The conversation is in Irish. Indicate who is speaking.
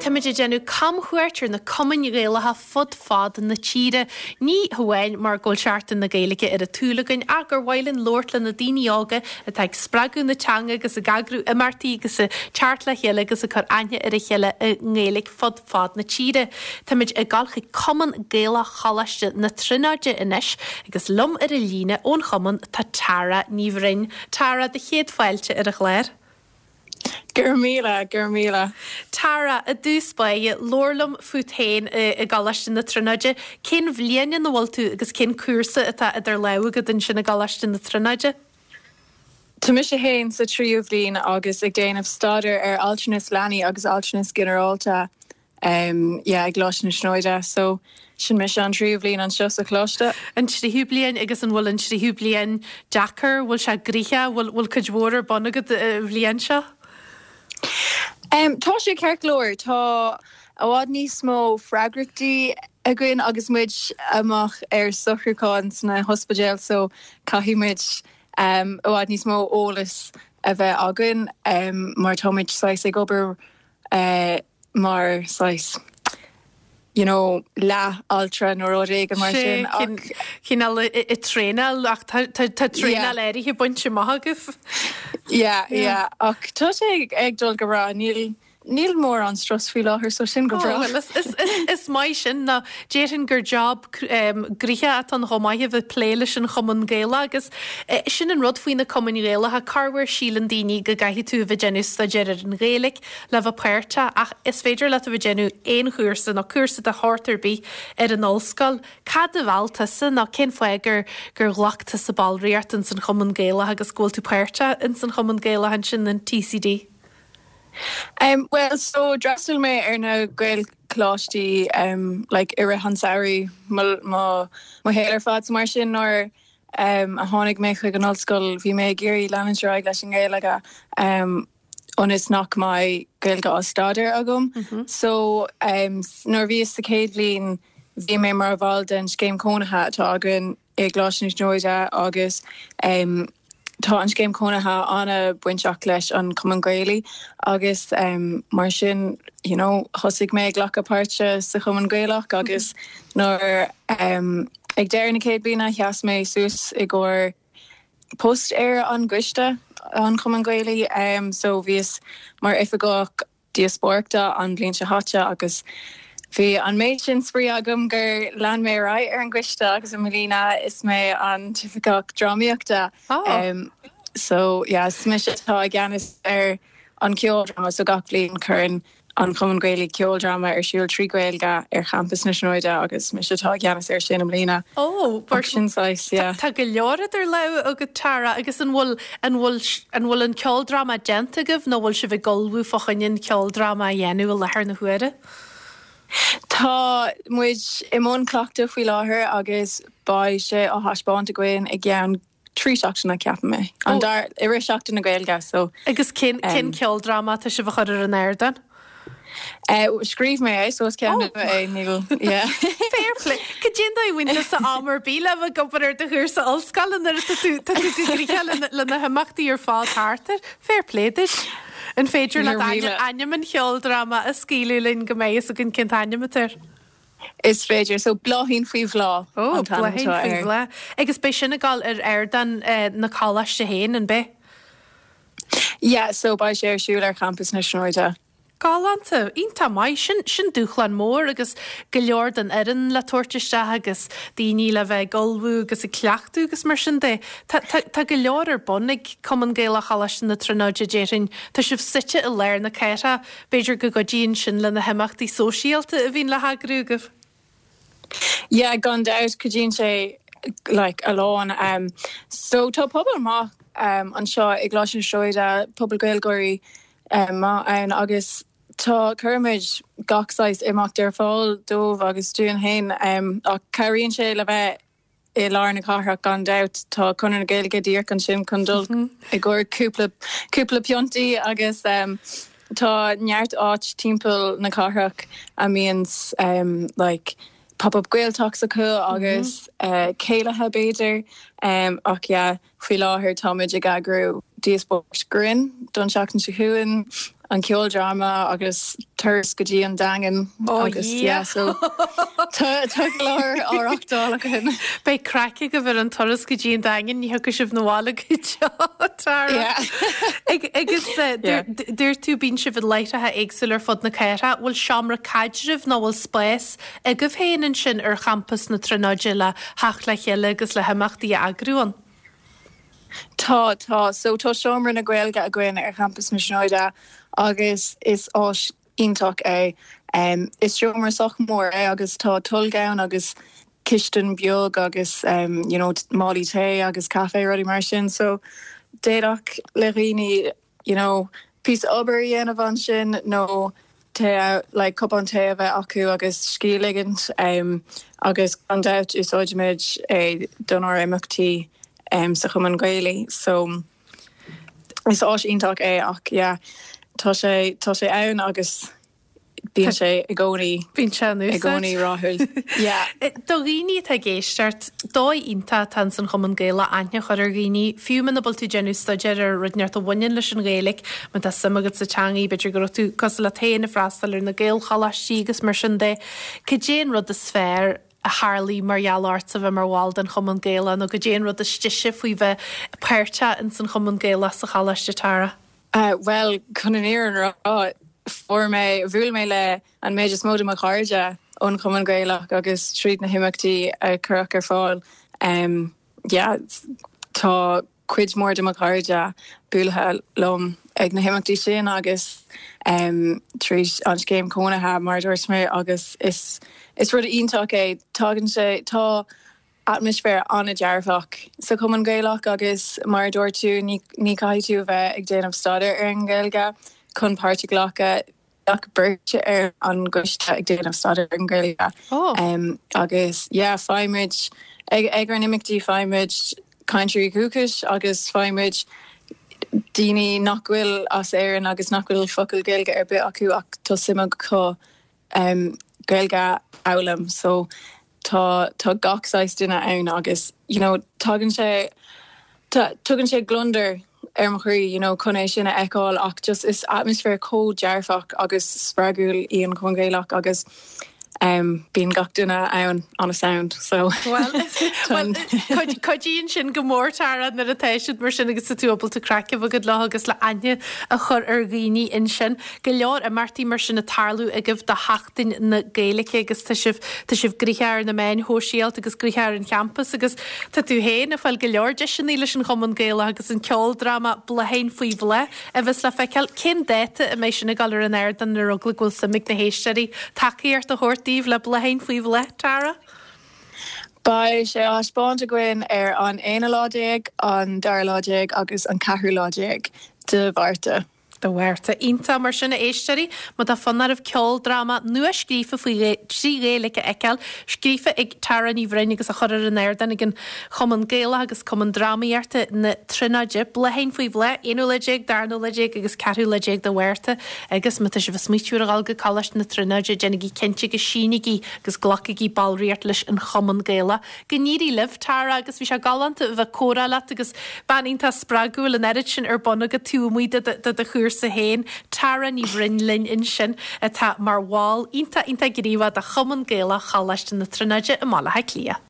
Speaker 1: Táimid ag déanamh camchuairt ar na cumainn Ghaelacha fud fad na tíre. Ní hamháin mar go bhfuil Seachtain na Gaeilge ar an tsúil againn ach gur mhaith linn labhairt le na daoine óga atá ag spreagadh na teanga agus ag eagrú imeachtaí agus ag teacht le chéile agus ag cur aithne ar a chéile i nGaeilge fud fad na tíre. Táimid ag dul chuig Cumann Gaelach Choláiste na Tríonóide anois agus liom ar an líne ón chumann tá Tara Ní Bhroin. Tara, do chéad fáilte ar an chlár.
Speaker 2: Go raibh míle, go raibh míle.
Speaker 1: Tara, i dtús báire, labhair liom fút féin i gColáiste na Tríonóide. Cén bhliain ina bhfuil tú agus cén cúrsa atá idir lámha agat ansin i gColáiste na Tríonóide?
Speaker 2: Tá mise féin sa tríú bhliain agus ag déanamh staidéar ar altranas leanaí agus altranas ginearálta. Em yeah i gColáiste na Tríonóide so sin mise an tríú bhliain anseo sa choláiste.
Speaker 1: An tríú bliain agus an bhfuil an tríú bliain deacair, bhfuil sé gnoitheach, bhfuil bhfuil cuid mhór ar bun agat an bhliain seo?
Speaker 2: Em tá sé ceart go leor, tá i bhfad níos mó freagrachtaí againn agus muid amach ar socrúchán sna hospidéil so caithfidh muid em i bhfad níos mó eolas a bheith againn em mar tá muid saghas ag obair eh mar saghas you know leath altra nó rud éigin mar sin
Speaker 1: ach. Cineál ag traenáil ach tá traenáil áirithe bainte amach agaibh.
Speaker 2: Yeah yeah ach tá sé ag dul go breá níl níl mórán strus faoi láthair so sin go breá.
Speaker 1: Bhuel is maith sin nó déarfainn gur job gnoitheach atá ann chomh maith a bheith ag plé leis an Chumann Gaelach agus sin an rud faoi na Cumainn Ghaelacha, corruair síleann daoine go gcaithfidh tú a bheith ag déanamh staidéar ar an Ghaeilge le bheith páirteach ach is féidir leat a bheith ag déanamh aon chúrsa nó cúrsa de shórt ar bith ar an ollscoil. Cad a mheall tusa nó cén fáth gur gur ghlac tusa ballraíocht ins an Chumann Gaelach agus go bhfuil tú páirteach ins an Chumann Gaelach ansin in TCD?
Speaker 2: Um bhuel so d'fhreastail mé ar na Gaelcholáistí um like i rith an samhraidh mo mo mo shaol ar fad so mar sin nuair um a tháinig mé chuig an ollscoil bhí mé ag iarraidh leanúint ar aghaidh leis an nGaeilge um ionas nach mbeidh Gaeilge á staidéar agam. So nuair a bhíos sa chéad bhliain bhí mé mar bhall den scéim cónaithe atá againn i gColáiste na Tríonóide agus tá an scéim cónaithe an-bainteach leis an Chumann Gaelach agus mar sin you know thosaigh mé ag glacadh páirte sa Chumann Gaelach agus nuair ag deireadh na céad bliana sheas mé suas i gcomhair post ar an gcoiste an Chumann Gaelaigh so bhíos mar oifigeach díospóireachta an bhliain seo chaite agus bhí an méid sin spraoi agam gur lean mé ar aghaidh ar an gcoiste agus i mbliana is mé an t-oifigeach drámaíochta so yeah is mise atá i gceannas ar an ceoldráma so gach bliain cuireann an Chumann Gaelaigh ceoldráma ar siúl trí Ghaeilge ar champas na Tríonóide agus mise atá i gceannas air sin i mbliana.
Speaker 1: Ó, mar sin saghas, yeah. Tá go leor idir lámha agat Tara agus an bhfuil, an bhfuil, an bhfuil an ceoldráma déanta agaibh nó bhfuil sibh ag ullmhú fá choinne an ceoldráma a dhéanamh i láthair na huaire?
Speaker 2: Tá muid i mbun cleachtadh faoi láthair agus beidh sé á thaispeáint againn i gceann 3 seachtaine ceapaim é. An dara, i rith Seachtain na Gaeilge so.
Speaker 1: Agus cén, cén ceoldráma atá sibh a chur ar an ardán?
Speaker 2: Scríobh mé é so is ceann nua é, níl, yeah.
Speaker 1: Fair play. Cad é an dóigh a bhfaigheann tusa am ar bith le bheith ag obair ar do chúrsa ollscoile nuair atá tú, tá tú go gnoitheach le, le na himeachtaí ar fad thart air? Fair play duit. An féidir leat ainm, ainm an cheoldráma a scaoileadh linn go mbeidh fhios againn cén t-ainm atá air?
Speaker 2: Is féidir. So, Bláithín faoi Bhláth
Speaker 1: Ó, an t-ainm Bláithín atá faoi air. Bhláth. Agus beidh sin ag dul ar ardán na coláiste féin, an beidh?
Speaker 2: Yeah, so beidh sé ar siúl ar champas na Tríonóide.
Speaker 1: Galánta. Iontach maith. Sin, sin dúshlán mór agus go leor den fhoireann le tabhairt isteach agus daoine le bheith ag ullmhú agus ag cleachtadh agus mar sin de. Tá, tá, tá go leor ar bun ag Cumann Gaelach Choláiste na Tríonóide, déarfainn. Tá sibh suite i lár na cathrach. B'fhéidir go gcuidíonn sin le na himeachtaí sóisialta a bhíonn le heagrú agaibh?
Speaker 2: Yeah, gan dabht, cuidíonn sé like a lán. Um, so tá pobal maith um, anseo i gColáiste na Tríonóide, pobal Gaeilgeoirí um, maith ann agus tá cuirimid gach saghas imeacht ar fáil dóibh agus dúinn féin um, ach cabhraíonn sé le bheith i lár na cathrach gan dabht. Tá Conradh na Gaeilge díreach ansin chun dul i gcomhair cúpla cúpla piontaí agus tá neart áit timpeall na cathrach a mbíonn like pop up Gaeltalks acu agus céilithe b'fhéidir ach yeah faoi láthair táimid ag eagrú díospóireacht grinn don seachtain seo chugainn. an ceoldráma agus turas go dtí an Daingean agus yeah so tá tá go leor á reachtáil againn.
Speaker 1: Beidh craic agaibh ar an turas go dtí an Daingean, ní thiocfaidh sibh 'na bhaile go deo, Tara.
Speaker 2: Yeah.
Speaker 1: Agus dúirt tú bíonn sibh i láithreacha éagsúla ar fud na cathrach, bhfuil seomra caidrimh nó bhfuil spás agaibh féin ansin ar champas na Tríonóide le theacht le chéile agus le himeachtaí a eagrú ann?
Speaker 2: Tá, tá. So tá Seomra na Gaeilge againn ar champas na Tríonóide agus is áis iontach é. Is seomra sách mór é agus tá tolg ann agus cistin beag agus you know málaí tae agus caife rudaí mar sin. So d'fhéadfadh le dhaoine you know, píosa obair a dhéanamh ansin nó tae, like cupán tae a bheith acu agus scíth a ligint um, agus gan dabht úsáidimid é donár imeachtaí um, sa Chumann Gaelach. So is áis iontach é ach yeah, tá sé tá sé ann agus Bíonn sé i gcónaí.
Speaker 1: Bíonn sé in
Speaker 2: úsáid. I gcónaí rathúil.
Speaker 1: Yeah. Do dhaoine atá ag éisteacht, dóigh iontach atá ins an Chumann Gaelach aithne a chur ar dhaoine, fiú muna bhfuil tú ag déanamh staidéir ar rud inteacht a bhaineann leis an Ghaeilge, má tá suim agat sa teangaidh, b'fhéidir go raibh tú cosúil leat féin ag freastal ar na Gaelcholáistí agus mar sin de. Cad é an rud is fearr a tharlaigh mar gheall ortsa bheith mar bhall den Chumann Gaelach nó cad é an rud is deise faoi bheith páirteach ins an Chumann Gaelach sa Choláiste, Tara?
Speaker 2: Bhuel, chun an fhírinne a rá, fuair mé, bhuail mé le an méid is mó de mo chairde ón Chumann Gaelach agus tríd na himeachtaí a cuireadh ar fáil. Yeah, tá cuid mhór de mo chairde buailthe liom ag na himeachtaí sin agus tríd an scéim cónaithe, mar a dúirt mé, agus is is rud iontach é. Tagann sé, tá atmaisféar an-dearfach sa Chumann Gaelach agus mar a dúirt tú, ní caithfidh tú a bheith ag déanamh staidéar ar an nGaeilge chun páirt a ghlacadh. Bheadh beirt ar an gcoiste ag déanamh staidéar ar an nGaeilge agus yeah faighimid, ag ár n-imeachtaí faighimid cainteoirí dúchais agus faighimid daoine nach bhfuil as Éirinn agus nach bhfuil focal Gaeilge ar bith acu ach tá suim acu Gaeilge a fhoghlaim so tá tá gach saghas duine ann agus you know tagann sé tugann sé gliondar ar mo chroí you know chun é sin a fheiceáil ach just is atmaisféar chomh dearfach agus spreagúil í an Cumann Gaelach agus um bíonn gach duine ann an-sound so
Speaker 1: Well cuidíonn sin go mór Tara nuair atá siad mar sin agus tá tú ábalta craic a bheith agat leo agus le aithne a chur ar dhaoine ansin. Go leor imeachtaí mar sin ag tarlú agaibh do Sheachtain na Gaeilge agus tá sibh, tá sibh gnoitheach ar na meáin shóisialta agus gnoitheach ar an champas agus tá tú féin ag fáil go leor deiseanna leis an Chumann Gaelach agus an ceoldráma Blátháin Faoi Bhláth a bheas le feiceáil. Cén dáta a mbeidh sin ag dul ar an ardán ar eagla go bhfuil suim ag na héisteoirí tacaíocht a thabhairt daoibh le Blátháin Faoi Bhláth, Tara?
Speaker 2: Beidh sé á thaispeáint againn ar an aonú lá déag, an dara lá déag agus an ceathrú lá déag de Mhárta.
Speaker 1: De Mhárta. Iontach mar sin, a éisteoirí, má tá fonn oraibh ceoldráma nua-scríofa faoi trí Ghaeilge a fheiceáil, scríofa ag Tara Ní Bhroin agus á chur ar an ardán ag an Chumann Gaelach agus Cumann Drámaíochta na Tríonóide, Blátháin Faoi Bhláth, aonú lá déag, darna lá déag agus ceathrú lá déag de Mhárta. Agus má tá sibh ag smaoitiú ar a dhul go Coláiste na Tríonóide, déanaigí cinnte go sínígí agus glacaigí ballraíocht leis an Chumann Gaelach. Go n-éirí libh, Tara, agus bhí sé galánta a bheith ag comhrá leat agus bean iontach spreagúil, an oiread sin ar bun agat taobh amuigh de do chúrsa féin. Tara Ní Bhroin linn ansin, atá mar bhall iontach iontach gníomhach de Chumann Gaelach Choláiste na Tríonóide i mBaile Átha Cliath.